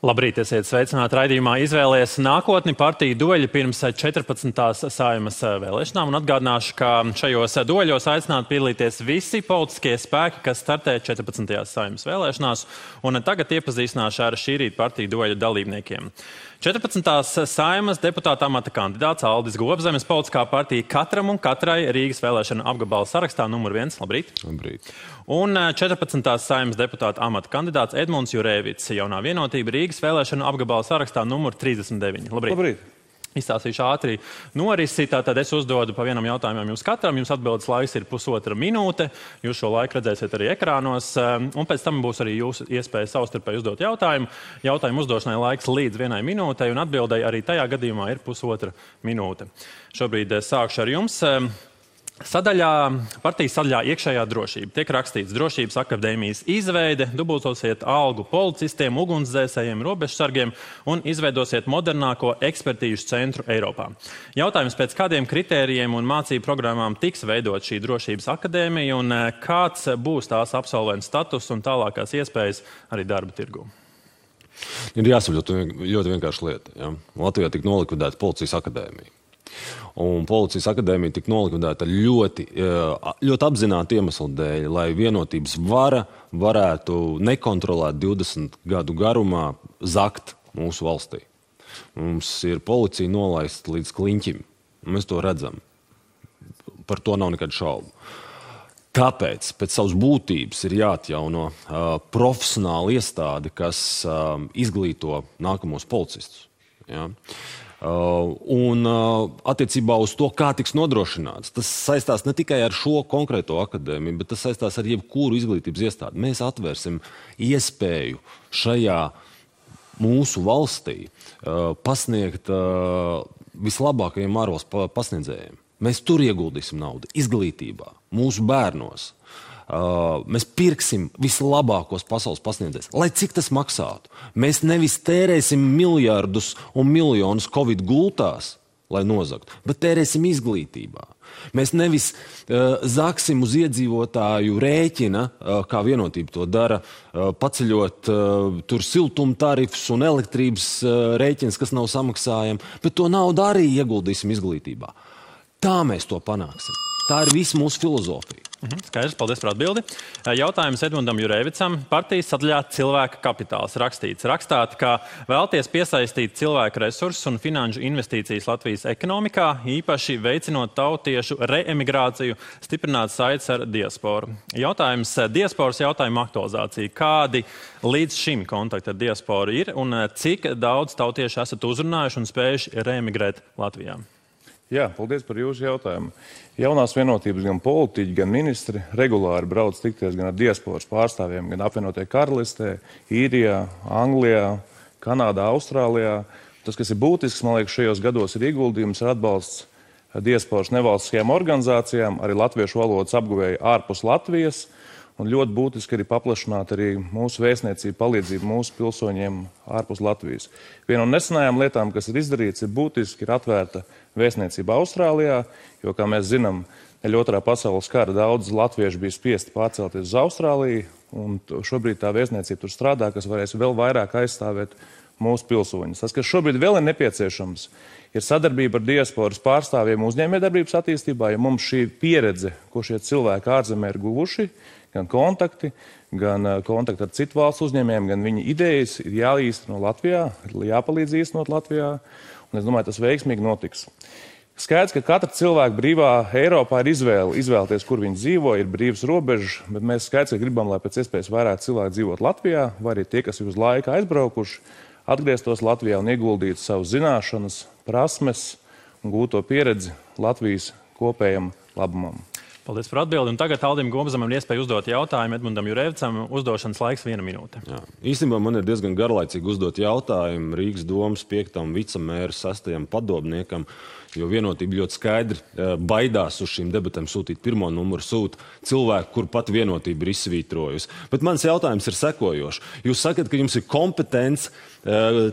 Labrīt, esiet sveicināti raidījumā Izvēlies nākotni. Partiju dueļi pirms 14. Saeimas vēlēšanām. Un atgādināšu, ka šajos dueļos aicināti piedalīties visi politiskie spēki, kas startē 14. Saeimas vēlēšanās. Un tagad iepazīstināšu ar šī rīta partiju dueļu dalībniekiem. 14. Saeimas deputāta amata kandidāts Aldis Gobzemes, politiskā partija Katram un katrai Rīgas vēlēšana apgabala sarakstā numur 1. Labrīt. Labrīt. Un 14. Saeimas deputāta amata kandidāts Edmunds Jurēvits, Jaunā vienotība Rīgas vēlēšana apgabala sarakstā numur 39. Labrīt. Labrīt. Izstāstīšu ātri norisi, tātad es uzdodu pa vienam jautājumam jums katram. Jums atbildes laiks ir 1,5 minūte. Jūs šo laiku redzēsiet arī ekrānos. Un pēc tam būs arī jūsu iespēja savstarpēji uzdot jautājumu. Jautājumu uzdošanai laiks līdz 1 minūtei, un atbildēji arī tajā gadījumā ir 1,5 minūte. Šobrīd sākšu ar jums. Partijas sadaļā iekšējā drošība. Tiek rakstīts drošības akadēmijas izveide, dubultosiet algu policistiem, ugunsdzēsējiem, robežsargiem un izveidosiet modernāko ekspertīžu centru Eiropā. Jautājums, pēc kādiem kritērijiem un mācību programmām tiks veidot šī drošības akadēmija un kāds būs tās absolventu status un tālākās iespējas arī darba tirgū? Ir jāsaprot ļoti vienkārši lieta. Ja? Latvijā tika nolikvidēta policijas akadēmija. Un policijas akadēmija tika nolikvidēta ļoti apzināti iemeslu dēļ, lai vienotības vara varētu nekontrolēt 20 gadu garumā zakt mūsu valstī. Mums ir policija nolaista līdz kliņķim. Mēs to redzam. Par to nav nekādu šaubu. Tāpēc pēc savas būtības ir jāatjauno profesionāla iestāde, kas izglīto nākamos policistus. Ja? Un attiecībā uz to, kā tiks nodrošināts, tas saistās ne tikai ar šo konkrēto akadēmiju, bet tas saistās ar jebkuru izglītības iestādi. Mēs atvērsim iespēju šajā mūsu valstī pasniegt vislabākajiem ārvalstu pasniedzējiem. Mēs tur ieguldīsim naudu, izglītībā, mūsu bērnos. Mēs pirksim vislabākos pasaules pasniedzējus, lai cik tas maksātu. Mēs nevis tērēsim miljardus un miljonus Covid gultās, lai nozagtu, bet tērēsim izglītībā. Mēs nevis zaksim uz iedzīvotāju rēķina, kā vienotība to dara, paceļot tur siltuma tarifus un elektrības rēķins, kas nav samaksājami, bet to naudu arī ieguldīsim izglītībā. Tā mēs to panāksim. Tā ir visa mūsu filozofija. Skaidrs, paldies par atbildi. Jautājums Edmundam Jurēvicam. Partijas sadaļā cilvēka kapitāls rakstīts. Rakstāt, ka vēlties piesaistīt cilvēku resursus un finanšu investīcijas Latvijas ekonomikā, īpaši veicinot tautiešu reemigrāciju, stiprināt saites ar diasporu. Jautājums diasporas jautājumu aktualizācija. Kādi līdz šim kontakti ar diasporu ir un cik daudz tautiešu esat uzrunājuši un spējuši reemigrēt Latvijā? Jā, paldies par jūsu jautājumu. Jaunās vienotības gan politiķi, gan ministri regulāri brauc tikties gan ar diasporas pārstāvjiem, gan apvienotajā karalistē, Īrijā, Anglijā, Kanādā, Austrālijā. Tas, kas ir būtisks, man liekas, šajos gados ir ieguldījums ar atbalsts diasporas nevalstiskajām organizācijām, arī latviešu valodas apguvēju ārpus Latvijas. Un ļoti būtiski arī paplašināt arī mūsu vēstniecību palīdzību mūsu pilsoņiem ārpus Latvijas. Viena no nesenajām lietām, kas ir izdarīts, ir būtiski, ir atvērta vēstniecība Austrālijā, jo, kā mēs zinām, dēļ otrā pasaules kara daudz latviešu bija spiesti pārcelties uz Austrāliju, un šobrīd tā vēstniecība tur strādā, kas varēs vēl vairāk aizstāvēt mūsu pilsoņus. Tas, kas šobrīd vēl ir nepieciešams, ir sadarbība ar diasporas pārstāvjiem uzņēmējdarbības attīstībā, ja mums šī pieredze, ko šie cilvēki ārzemē ir guvuši, gan kontakti ar citu valstu uzņēmējiem, gan viņa idejas ir jāīsteno Latvijā, jāpalīdz īstenot Latvijā, un es domāju, tas veiksmīgi notiks. Skaidrs, ka katra cilvēka brīvā Eiropā ir izvēlēties, kur viņi dzīvo, ir brīvas robežas, bet mēs skaidrs, ka gribam, lai pēc iespējas vairāk cilvēku dzīvot Latvijā, vai arī tie, kas ir uz laiku aizbraukuši, atgrieztos Latvijā un ieguldītu savus zināšanas, prasmes un gūto pieredzi Latvijas kopējam labumam. Paldies par atbildi. Un tagad Aldim Gobzemam ir iespēja uzdot jautājumu Edmundam Jurēvicam. Uzdošanas laiks 1 minūte. Jā. Īstenībā man ir diezgan garlaicīgi uzdot jautājumu Rīgas domas 5. vicemēra 6. padomniekam, jo vienotība ļoti skaidri baidās uz šīm debatēm sūtīt pirmo numuru, sūta cilvēku, kur pat vienotība ir izsvītrojusi. Bet mans jautājums ir sekojošs. Jūs sakat, ka jums ir kompetence,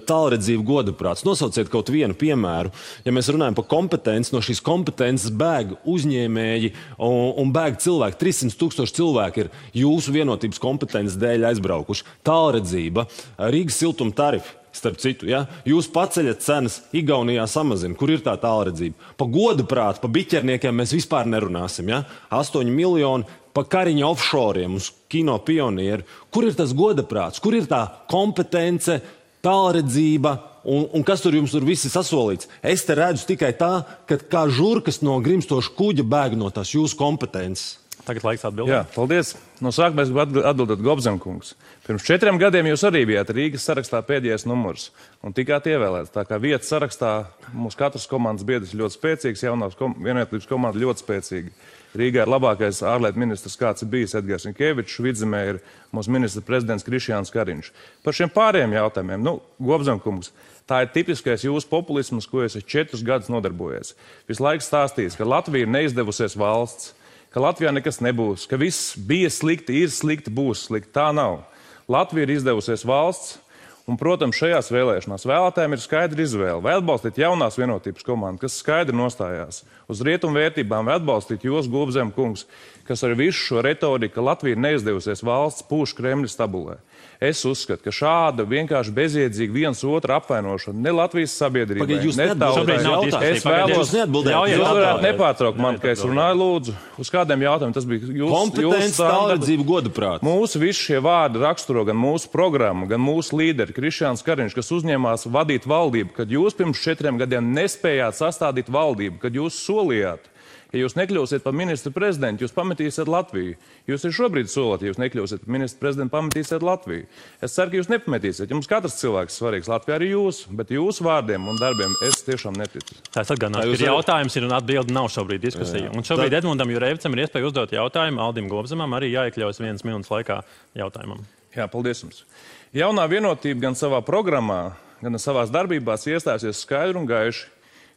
tālredzība, godaprāts. Nosauciet kaut vienu piemēru. Ja mēs runājam par kompetenci, no šīs kompetences bēg uzņēmēji un bēg cilvēki. 300,000 cilvēki ir jūsu vienotības kompetences dēļ aizbraukuši. Tālredzība, Rīgas siltuma tarifi. starp citu, ja? Jūs paceļat cenas, Igaunijā samazina. Kur ir tā tālredzība? Pa godu prātu, pa biķerniekiem mēs vispār nerunāsim. Ja? 8 miljoni pa Kariņa offshoriem uz kino pionieru. Kur ir tas goda prāts? Kur ir tā kompetence, tālredzība un kas tur jums tur visi sasolīts? Es te redzu tikai tā, ka kā žurkas no grimstoša kuģa bēg no tās jūsu kompetences. Tagad laiks atbildēt. Jā, paldies. No sākuma es gribu atbildēt Gobzemkungs. Pirms 4 gadiem jūs arī bijāt Rīgas sarakstā pēdējais numurs un tikāt ievēlēts. Tā kā vietas sarakstā mums katrs komandas biedrs ļoti spēcīgs, jaunās vienotības komanda ļoti spēcīga. Rīgā ir labākais ārlietu ministrs, kāds ir bijis Edgars Rinkevičs, Vidzemē ir mūsu ministra prezidents Krišjāns Kariņš. Par šiem pārējiem jautājumiem, Gobzemkungs, tā ir tipiskais jūsu populisms, ko es 4 gadus nodarbojies. Visu laiku stāstījis, ka Latvija ir neizdevusies valsts, ka Latvijā nekas nebūs, ka viss bija slikti, ir slikti, būs slikti. Tā nav. Latvija ir izdevusies valsts, un, protams, šajās vēlēšanās vēlētājiem ir skaidra izvēle. Vai atbalstīt jaunās vienotības komandu, kas skaidri nostājās uz rietumu vērtībām, vai atbalstīt jūs, Gobzemkungs, kas ar visu šo retoriku, ka Latvija ir neizdevusies valsts, pūš Kremļa stabulē. Es uzskatu, ka šāda vienkārši bezjēdzīga viens otru apvainošana ne Latvijas sabiedrībai, ne tautai. Es vēlos, jūs varētu nepārtraukt man, ka es runāju, lūdzu, uz kādiem jautājumiem tas bija jūsu kompetence, tālredzība, godaprāts. Mūsu visi šie vārdi raksturo gan mūsu programmu, gan mūsu līderi Krišjāns Kariņš, kas uzņēmās vadīt valdību, kad jūs pirms 4 gadiem nespējāt sastādīt valdību, kad jūs solījāt. Ja jūs nekļūsiet par ministru prezidentu, jūs pametīsiet Latviju. Jūs arī šobrīd solat, ja jūs nekļūsiet par ministru prezidentu, pametīsiet Latviju. Es ceru, ka jūs nepametīsiet. Jums katrs cilvēks svarīgs, Latvijā arī jūs, bet jūsu vārdiem un darbiem es tiešām neticu. Tā es atgādināšu, ka jautājums ir un atbildi nav šobrīd diskusija. Un šobrīd Edmundam Jurevicam ir iespēja uzdot jautājumu, Aldim Gobzemam arī jāiekļaujas 1 minūtes laikā jautājumam. Jā, paldies jums. Jaunā vienotība gan savā programmā, gan savās darbībās iestājusies skaidri un gaiši,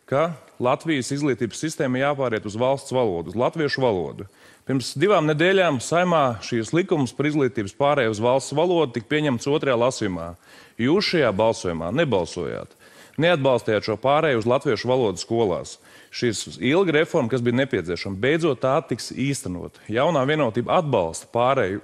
ka Latvijas izglītības sistēma jāpāriet uz valsts valodu, uz latviešu valodu. Pirms 2 nedēļām Saimā šīs likums par izglītības pārēju uz valsts valodu tika pieņemts 2. lasījumā. Jūs šajā balsojumā nebalsojāt. Neatbalstījāt šo pārēju uz latviešu valodu skolās. Šīs ilga reforma, kas bija nepieciešama, beidzot tā tiks īstenot. Jaunā vienotība atbalsta pārēju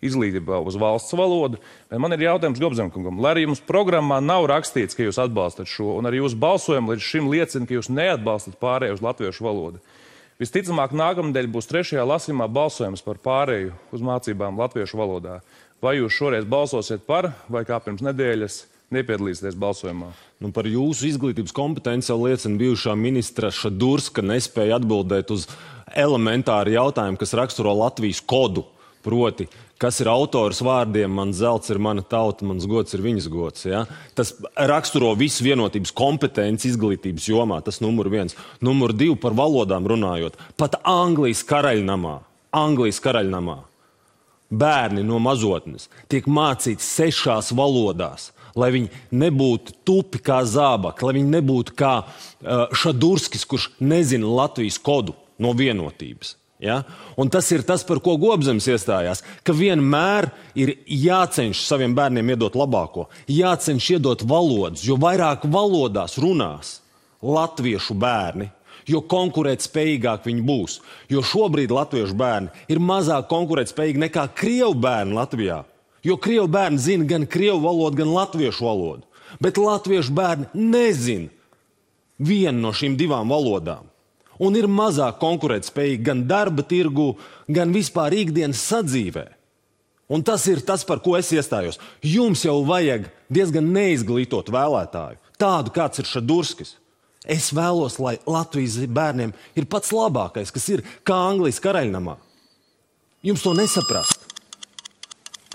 izglītībā uz valsts valodu. Man ir jautājums Gobzemkungam. Lai arī jums programmā nav rakstīts, ka jūs atbalstat šo, un arī jūsu balsojumi līdz šim liecina, ka jūs neatbalstat pārēju uz latviešu valodu. Visticamāk, nākamnedēļ būs 3. lasījumā balsojums par pārēju uz mācībām latviešu valodā. Vai jūs šoreiz balsosiet par, vai kā pirms nedēļas nepiedalīsieties balsojumā? Par jūsu izglītības kompetenci jau liecina bijušā ministra Šadurska nespēja atbildēt uz elementāru jautājumu, kas raksturo Latvijas kodu. Proti, kas ir autors vārdiem, man zelts ir mana tauta, mans gods ir viņas gods. Ja? Tas raksturo visu vienotības kompetenci izglītības jomā, tas numur 1. Numur 2 par valodām runājot. Pat Anglijas karaļnamā bērni no mazotnes tiek mācīti 6 valodās, lai viņi nebūtu tupi kā zābaki, lai viņi nebūtu kā Šadurskis, kurš nezina Latvijas kodu no vienotības. Ja? Un tas ir tas, par ko Gobzems iestājās, ka vienmēr ir jācenš saviem bērniem iedot labāko, jācenš iedot valodas, jo vairāk valodās runās latviešu bērni, jo konkurētspējīgāk viņi būs. Jo šobrīd latviešu bērni ir mazāk konkurētspējīgi nekā krievu bērni Latvijā, jo krievu bērni zina gan krievu valodu, gan latviešu valodu, bet latviešu bērni nezina vienu no šīm 2 valodām. Un ir mazāk konkurētspējīgi gan darba tirgu, gan vispār ikdienas sadzīvē. Un tas ir tas, par ko es iestājos. Jums jau vajag diezgan neizglītot vēlētāju, tādu kāds ir Šadurskis. Es vēlos, lai Latvijas bērniem ir pats labākais, kas ir kā Anglijas karaļnamā. Jums to nesaprast.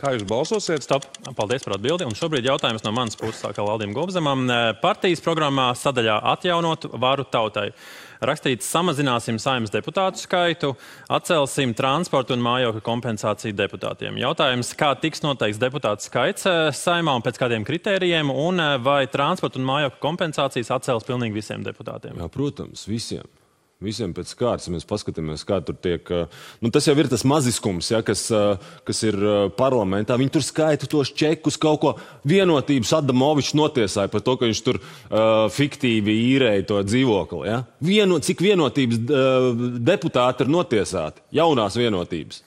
Kā jūs balsosiet? Stop. Paldies par atbildi. Un šobrīd jautājums no manas puses sākā Aldim Gobzemam. Partijas programmā sadaļā atjaunot varu tautai. Rakstīts, samazināsim Saeimas deputātu skaitu, atcelsim transportu un mājokļu kompensāciju deputātiem. Jautājums, kā tiks noteikts deputātu skaits Saeimā un pēc kādiem kritērijiem, un vai transportu un mājokļu kompensācijas atcels pilnīgi visiem deputātiem? Jā, protams, visiem. Visiem pēc kārtas, ja mēs paskatāmies, kā tur tiek... tas jau ir tas maziskums, ja, kas ir parlamentā. Viņi tur skaita tos čekus, kaut ko vienotības Adamovičs notiesāja par to, ka viņš tur fiktīvi īrēja to dzīvokli. Ja. Cik vienotības deputāti ir notiesāti? Jaunās vienotības.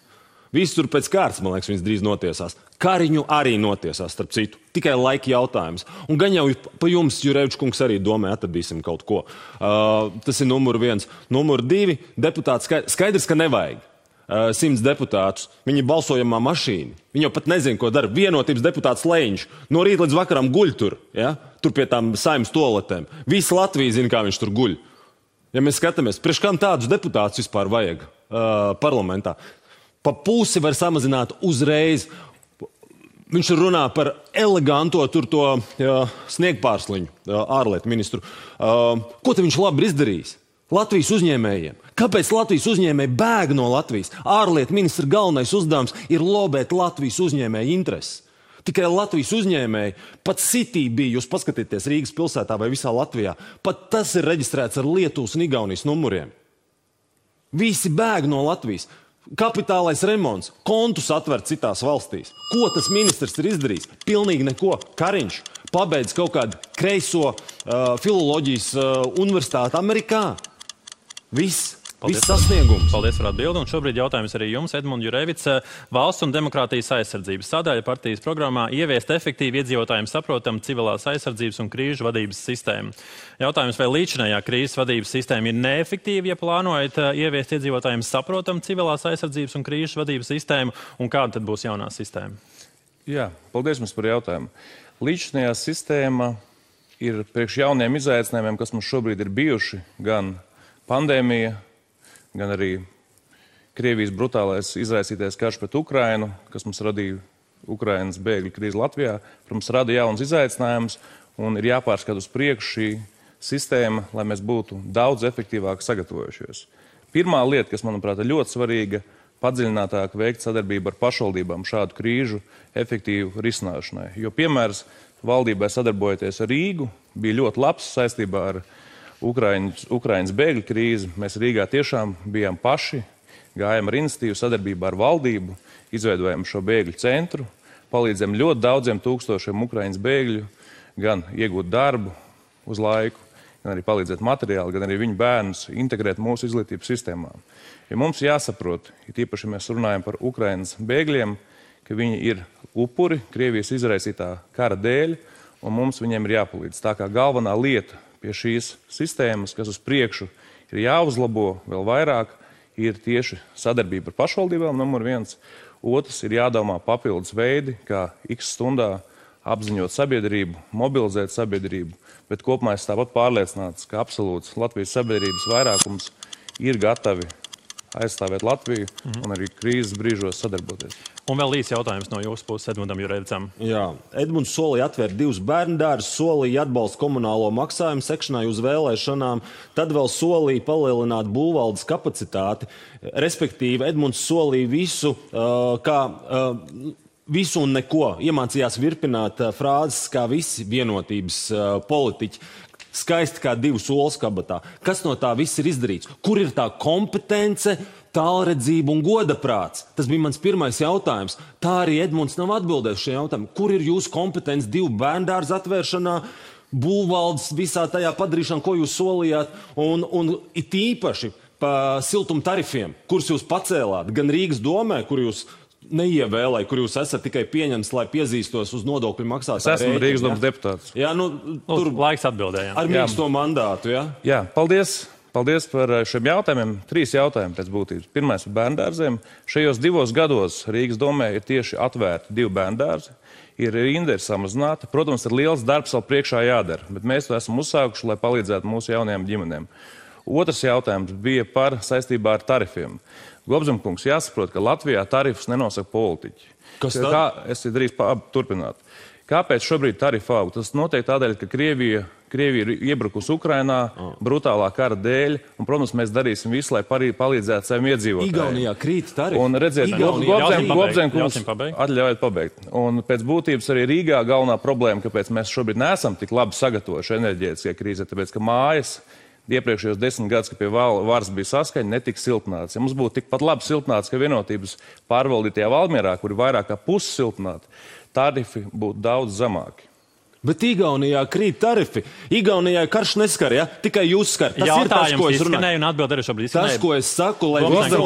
Visi tur pēc kārtas, man liekas, viņas drīz notiesās. Kariņu arī notiesās, starp citu. Tikai laika jautājums. Un gan jau pa jums, Jurevičs kungs, arī domē, atradīsim kaut ko. Tas ir numur 1. Numur 2, deputāts skaidrs, ka nevajag 100 deputātus. Viņi ir balsojamā mašīna. Viņi jau pat nezina, ko dara. Vienotības deputāts Leņš. No rīta līdz vakaram guļ tur. Ja? Tur pie tām Saeimas toaletēm. Visa Latvija zina, kā viņš tur guļ. Ja mēs skatāmies, priekš kam tādus deputātus vispār vajag parlamentā? Pa pusi var samazināt uzreiz. Viņš runā par eleganto tur to sniegpārsliņu ārlietu ministru. Ko te viņš labi ir izdarījis? Latvijas uzņēmējiem. Kāpēc Latvijas uzņēmēji bēg no Latvijas? Ārlietu ministra galvenais uzdevums ir lobēt Latvijas uzņēmēju intereses. Tikai Latvijas uzņēmēji, pat City bija, jūs paskatieties Rīgas pilsētā vai visā Latvijā, pat tas ir reģistrēts ar Lietuvas un Igaunijas numuriem. Visi bēg no Latvijas. Kapitālais remonts, kontus atver citās valstīs. Ko tas ministrs ir izdarījis? Pilnīgi neko. Kariņš pabeidz kaut kādu kreiso filoloģijas universitāti Amerikā. Viss sasniegums. Paldies par atbildi. Un šobrīd jautājums arī jums, Edmunds Jurevics. Valsts un demokrātijas aizsardzības sadaļa partijas programmā ieviest efektīvi iedzīvotājiem saprotam civilās aizsardzības un krīžu vadības sistēmu. Jautājums, vai līdzinājā krīzes vadības sistēma ir neefektīva, ja plānojat ieviest iedzīvotājiem saprotam civilās aizsardzības un krīžu vadības sistēmu, un kāda tad būs jaunā sistēma? Jā, paldies jums par jautājumu. Līdzinājā sistēma ir priekš jauniem izaicinājumiem, kas mums šobrīd ir bijuši, gan pandēmija, gan arī Krievijas brutālais izraisītais karš pret Ukrainu, kas mums radīja Ukrainas bēgļu krīzi Latvijā, protams, rada jauns izaicinājums un ir jāpārskata uz priekšu šī sistēma, lai mēs būtu daudz efektīvāk sagatavojušies. Pirmā lieta, kas, manuprāt, ir ļoti svarīga, padziļinātāk veikt sadarbību ar pašvaldībām šādu krīžu efektīvu risināšanai. Jo piemērs valdībai sadarbojoties ar Rīgu bija ļoti labs saistībā ar Ukrainas bēgļu krīzi. Mēs Rīgā tiešām bijām paši, gājām ar iniciatīvu sadarbībā ar valdību, izveidojām šo bēgļu centru, palīdzam ļoti daudziem tūkstošiem Ukrainas bēgļu gan iegūt darbu uz laiku, gan arī palīdzēt materiāli, gan arī viņu bērnus integrēt mūsu izglītības sistēmā. Ja mums jāsaprot, ja tīpaši mēs runājam par Ukrainas bēgļiem, ka viņi ir upuri Krievijas izraisītā kara dēļ, un mums viņiem ir jāpalīdz. Tā kā galvenā lieta pie šīs sistēmas, kas uz priekšu ir jāuzlabo vēl vairāk, ir tieši sadarbība ar pašvaldībām, numur 1. Otrs ir jādomā papildus veidi, kā x stundā apziņot sabiedrību, mobilizēt sabiedrību, bet kopumā es tāpat pārliecināts, ka absolūts Latvijas sabiedrības vairākums ir gatavi aizstāvēt Latviju un arī krīzes brīžos sadarboties. Un vēl īsi jautājums no jūsu puses Edmundam Jurevicam. Jā, Edmunds solīja atvērt 2 bērndārzus, solīja atbalstu komunālo maksājumu sekšanai uz vēlēšanām, tad vēl solīja palielināt būvvaldes kapacitāti. Respektīvi, Edmunds solīja visu un neko. Iemācījās virpināt frāzes kā visi vienotības politiķi. Skaisti kā 2 solas kabatā. Kas no tā viss ir izdarīts? Kur ir tā kompetence, tālredzība un godaprāts? Tas bija mans pirmais jautājums. Tā arī Edmunds nav atbildējis šajā jautājumā. Kur ir jūsu kompetence 2 bērndārzu atvēršanā, būvvaldes visā tajā padarīšanā, ko jūs solījāt, un it īpaši pa siltuma tarifiem, kurus jūs pacēlāt, gan Rīgas domē, kur jūs neievēlēja, kur jūs esat tikai pieņemts, lai piezīstos uz nodokļu maksātāju. Es esmu Rīgas domas deputāts. Jā, tur laiks atbildējām. Ar mīksto mandātu, jā? Jā, paldies. Paldies par šiem jautājumiem. 3 jautājumi pēc būtības. Pirmais par bērndārziem. Šajos 2 gados Rīgas domē ir tieši atvērti 2 bērndārzi. Ir rinda samazināta. Protams, ir liels darbs vēl priekšā jādara, bet mēs to esam uzsākuši, lai palīdzētu mūsu jaunajām ģimenēm. Otrs jautājums bija par saistībā ar tarifiem. Gobzemkungs, jāsaprot, ka Latvijā tarifus nenosaka politiķi. Kas tad? Es drīz turpināt. Kāpēc šobrīd tarifi aug? Tas notiek tādēļ, ka Krievija ir iebrukusi Ukrainā brutālā kara dēļ, un, protams, mēs darīsim visu, lai palīdzētu saviem iedzīvotājiem. Igaunijā krīt tarifi. Un redziet, Gobzemkungs, atļaujiet pabeigt. Un pēc būtības arī Rīgā galvenā problēma, kāpēc mēs šobrīd neesam tik labi sagatavojuši enerģētiskajai krīzē, tāpēc, ka mājas iepriekšējos 10 gadus, kad pie varas bija saskaņa, netika siltināts. Ja mums būtu tikpat labi siltināts, ka vienotības pārvaldītajā Valmierā, kur ir vairāk kā pusi siltināti, tarifi būtu daudz zemāki. Bet Igaunijā krīt tarifi. Igaunijā karš neskar, ja? Tikai jūs skar. Tas ir tas, ko es runāju. Izskanēju un atbild arī šobrīd izskanēju. Tas, ko es saku, lai Lūdzu,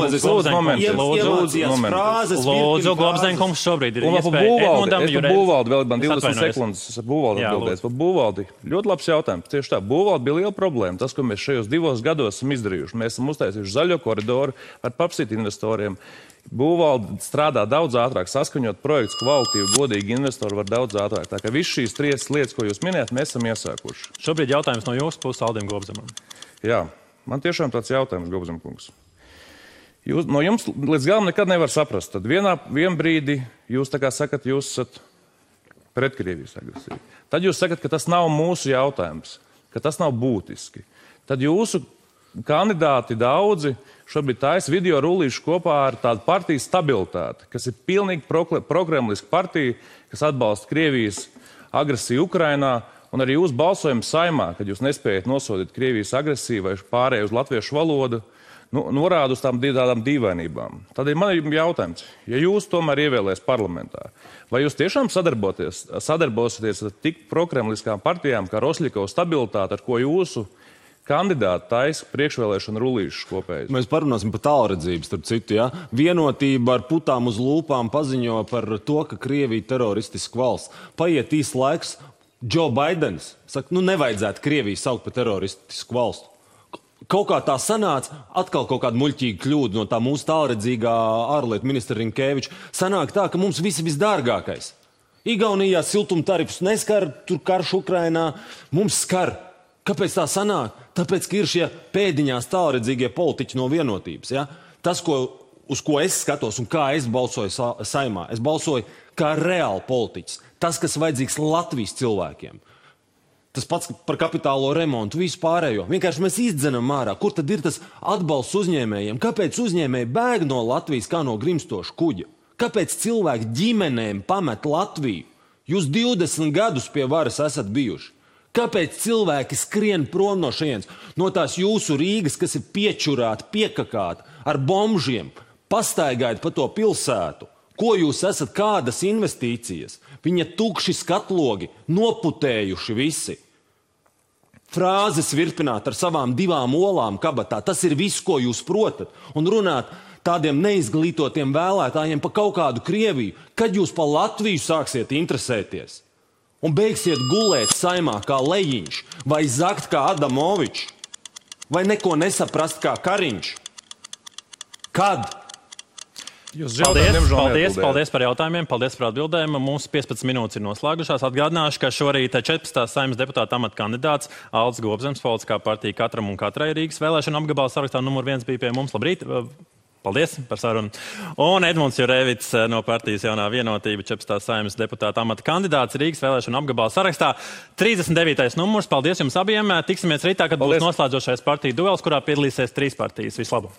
Globzenkungs šobrīd ir iespēja Edmundam Jurevičam. Būvaldi vēl man 20 sekundes. Es ar Būvaldi atbildēju. Par Būvaldi. Ļoti labs jautājums. Tieši tā. Būvaldi bija liela problēma. Tas, ko mēs šajos 2 gados esam izdarījuši. Mēs esam uztaisījuši zaļo koridoru ar papsīt investoriem. Būvalde strādā daudz ātrāk, saskaņot projekts kvalitīvi, godīgi investori var daudz ātrāk. Tā kā viss šīs 3 lietas, ko jūs minējat, mēs esam iesākuši. Šobrīd jautājums no jūsu puses Aldim Globzemam. Jā, man tiešām tāds jautājums, Globzemkungs. No jums līdz galam nekad nevar saprast. Tad vien brīdi jūs tā kā sakat, jūs esat pret Krievijas agresiju. Tad jūs sakat, ka tas nav mūsu jautājums, ka tas nav būtiski. Tad jūsu kandidāti daudzi šobrīd taisa video rullīšu kopā ar tādu partiju stabilitāti, kas ir pilnīgi prokremliska partija, kas atbalsta Krievijas agresiju Ukrainā, un arī jūs balsojam Saimā, kad jūs nespējat nosodīt Krievijas agresiju vai pārēju uz latviešu valodu, norāda uz tādām dīvainībām. Tādēļ man ir jautājums, ja jūs tomēr ievēlēs parlamentā, vai jūs tiešām sadarbosieties ar tik prokremliskām partijām kā Rosļikova stabilitāte, ar ko jūsu kandidāti taisa priekšvēlēšanu rullīšus kopējas? Mēs parunāsim par tālredzību, starp citu, ja? Vienotība ar putām uz lūpām paziņo par to, ka Krievija teroristiska valsts. Paiet īsts laiks, Joe Bidenis saka, nevajadzētu Krieviju saukt par teroristisku valstu. Kaut kā tā sanāca, atkal kaut kāda muļķīga kļūda no tā mūsu tālredzīgā ārlietu ministra Rinkeviča. Sanāk tā, ka mums visi visdārgākais. Igaunijā siltumtarifus neskar, tur karš Ukrainā, mums skar. Kāpēc tā sanāk? Tāpēc, ka ir šie pēdiņās tālredzīgie politiķi no vienotības. Ja? Tas, uz ko es skatos un kā es balsoju Saimā, es balsoju kā reāli politiķis. Tas, kas vajadzīgs Latvijas cilvēkiem. Tas pats par kapitālo remontu, visu pārējo. Vienkārši mēs izdzenam ārā. Kur tad ir tas atbalsts uzņēmējiem? Kāpēc uzņēmēji bēg no Latvijas kā no grimstoša kuģa? Kāpēc cilvēki ģimenēm pamet Latviju? Jūs 20 gadus pie varas esat bijuši. Kāpēc cilvēki skrien prom no šejienes? No tās jūsu Rīgas, kas ir piečurāta, piekakāta, ar bombžiem, pastaigājot pa to pilsētu. Ko jūs esat, kādas investīcijas? Viņa tukši skatlogi, noputējuši visi. Frāzes virpināt ar savām 2 olām kabatā. Tas ir viss, ko jūs protat. Un runāt tādiem neizglītotiem vēlētājiem pa kaut kādu Krieviju. Kad jūs pa Latviju sāksiet interesēties? Un beigsiet gulēt Saimā kā Lejiņš, vai zakt kā Adamovičs, vai neko nesaprast kā Kariņš? Kad? Paldies par jautājumiem, paldies par atbildēm. Mūsu 15 minūtes ir noslēgušās. Atgādināšu, ka šorīt 14. Saeimas deputāta amata kandidāts Aldis Globzems, politiskā partija Katram un Katrai Rīgas vēlēšana apgabala sarakstā numur 1 bija pie mums. Labrīt! Paldies par sarunu. Un Edmunds Jurevičs no partijas Jaunā vienotība, 14. Saeimas deputāta amata kandidāts Rīgas vēlēšana apgabala sarakstā. 39. numurs. Paldies jums abiem. Tiksimies rītā, kad būs noslēdzošais partiju duels, kurā piedalīsies 3 partijas. Vislabāk!